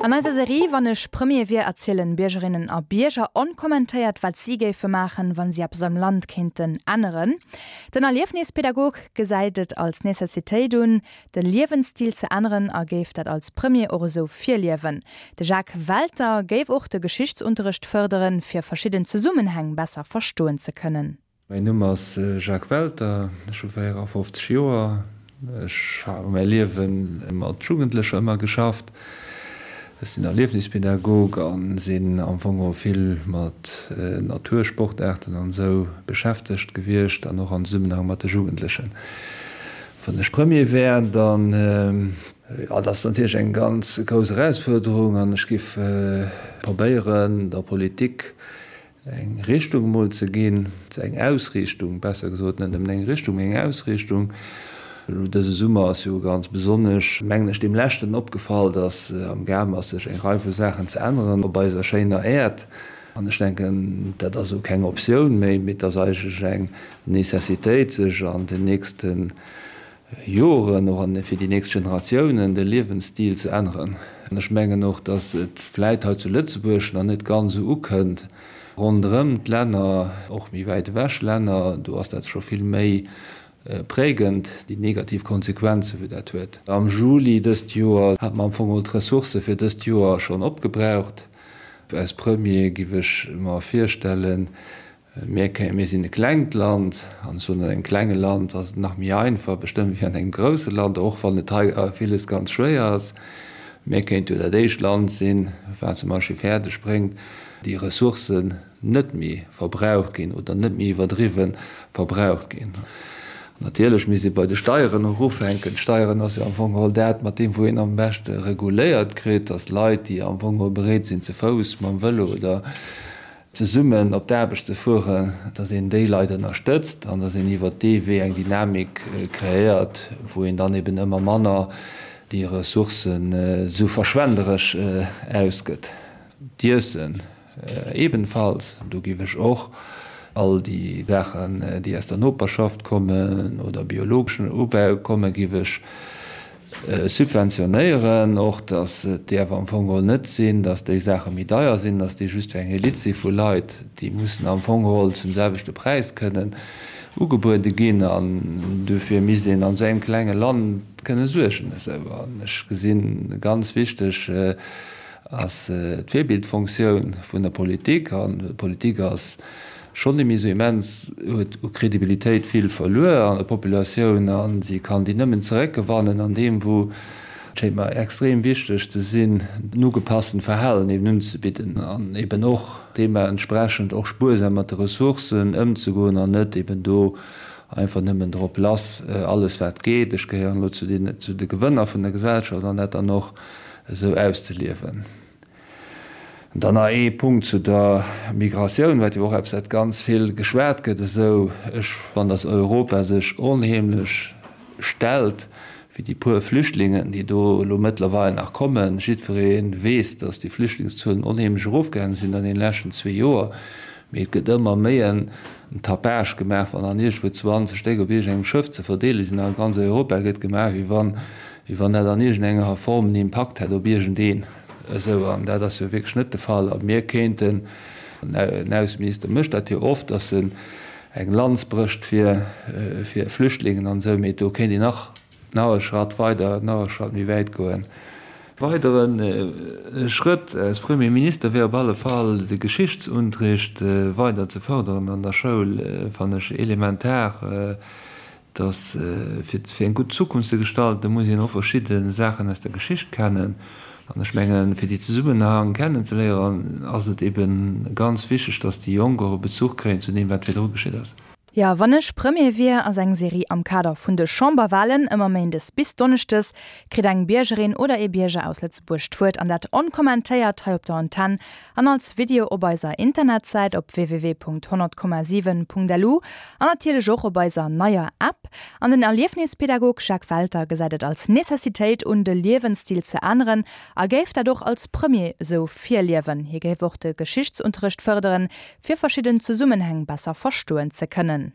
An eiser Serie Wann ech Premier wier erzielen Biergerinnen a Bierger onkommentéiert, wat si géife maachen, wa si eppes am Land kéinten änneren. Den Erliefnispädagog gesäit et als Necessitéit un, de Liewensstil ze änneren a géif dat als Premier och esou virliewen. De Jacques Welter géif och de Geschichtsunterrecht fërderen, fir verschidden Zesummenhäng besser verstoen ze kënnen. Mäin Numm ass Jacques Welter, ech hu 54 Joer. Ech hu mäi Liewe mat Jugendlecher ëmmer geschafft. Ech sinn Erliefnispädagog a sinn am Fong och vill mat Natursportaarten an esou beschäftegt gewiescht an och am Zesummenhang mat de Jugendlechen. Wann ech Premier wär, dann, jo, dat ass natierlech eng ganz grouss Erausfuerderung an ech giff probéieren der Politik eng Richtung emol ze ginn, eng Ausriichtung, besser gesot, net nëmmen eng Richtung, mee eng Ausriichtung. Elo dëse Summer ass jo ganz besonnesch, mengen ech, deem Leschten opgefall, datt am Gaang ass, sech eng Rei vu Saachen ze änneren op eiser schéiner Äerd. An ech denken, dat ass elo keng Optioun méi, mee et ass eigentlech eng Necessitéit, sech an den nächste Joren, och an fir déi nächst Generatiounen, de Liewensstil ze änneren. An ech mengen och, datt et vläit hei zu Lëtzebuerg nach net ganz esou ukënnt. Ronderëm d'Länner, och méi wäit ewech Länner, do ass dat scho vill méi prägend, déi negativ Konsequenzen, wou dat huet. Am Juli dëst Joer hate mer am Fong geholl d'Ressourcë fir dëst Joer schonn opgebraucht. Als Premier giff ech mer virstellen, Mir mir sinn e klengt Land, an ech soen, an engem klenge Land ass et nach méi einfach bestëmmt wéi an engem grousse Land, och wann et hei villes ganz schwéier ass. Mir kéinte jo dat éischt Land sinn, wat zum Beispill fäerdeg bréngt, déi Ressourcen net méi verbraucht ginn oder net méi iwwerdriwwe verbraucht ginn. Natierlech misst ee bei de Steieren och ufänken. D'Steieren ass jo am Fong geholl dat, mat deem wou een am beschte reguléiert kritt, datt Leit, déi am Fong geholl bereet sinn ze Fouss, mam Vëlo oder zesummen op d'Aarbecht ze fueren, datt een déi Leit ënnerstëtzt an datt een iwwert dee Wee eng Dynamik kreéiert, wou een dann eben ëmmer manner déi Ressourcen esou verschwenderesch ausgëtt. D'Iessen ebenfalls, do géif ech och all déi Saachen, déi aus der Noperschaft kommen oder biologeschen Ubau kommen, géif ech Subventionéieren och, datt et däerf am Fong geholl net sinn, datt déi Saache méi deier sinn, datt déi just fir eng Elite si vu Leit, déi mussen am Fong geholl zum selwechte Präis kënnen ugebuede ginn. An dofir misst een an esou engem klenge Land kënne suergen. Esou, an ech gesinn, ganz wichteg ass d'Virbildfunktioun vun der Politik. An d'Politik ass schonn net méi esou immens, huet u Kredibilitéit vill verluer an der Populatioun a si kann déi nëmmen zeréckgewannen an deem wou, et schéngt mer extrem wichteg ze sinn, en ugepasstent Verhalen eben unzebidden an eben och deementsprechend och spuersam mat de Ressourcen ëmzegoen an net eben do einfach nëmmen drop lass alles wat geet, ech gehéieren elo zu den zu de Gewënner vun der Gesellschaft an dat dann och esou auszeliewen. Dann nach ee Punkt zu der Migratioun, wat jo och eppes wat ganz vill geschwat gëtt esou. Ech fannen, datt Europa sech onheemlech stellt fir déi puer Flüchtlingen, déi do elo mëttlerweil nach kommen. Jiddweree weess, datt déi Flüchtlingszuelen onheemlech erofgaange sinn an deene leschten zwee Joer, mee et gëtt ëmmer méi en Tapage gemaach, wann dann iergendwou 20 Stéck op iergendengem Schëff ze verdeele sinn a ganz Europa gëtt gemaach, wéi wann, wéi wann dat an iergendenger Form en Impakt hätt op iergendeen. Esou, an dat ass jo wierklech net de Fall. A mir kéinten, den Ausseminister mécht dat jo oft, datt en eng Lanz brécht fir Flüchtlingen an esou, mee do kéint een nach, nach e Schratt weider, nach e Schratt méi wäit goen. Weidere Schrëtt als Premier Minister wär op alle Fall de Geschichtsunterricht weider ze fërderen an der Schoul, fannen ech elementar. Dass fir fir eng gutt Zukunft ze gestalten, muss een och verschidde Saachen aus der Geschicht kennen. An ech mengen, fir déi Zesummenhang kennenzeléieren, ass et ebe ganz wichteg, dass déi Jonk och e Bezuch kréien zu deem, wat virdru geschitt ass. Jo, wann ech Premier wier ass eng Serie am Kader vun de Chamberwalen. Ëmmer méindes bis donneschdes kritt eng Biergerin oder ee Bierger aus Lëtzebuerg d'Wuert an dat onkommentéiert hei op der Antenn An als Video op eiser Internetsäit op www.100,7.lu an natierlech och op eiser neier App. An den Erliefnispädagog Jacques Welter gesäit et als Necessitéit un, de Liewensstil ze änneren a géif dat och als Premier esou virliewen. Hie géif och de Geschichtsunterrecht fërderen, fir verschidden Zesummenhäng besser verstoen ze kënnen.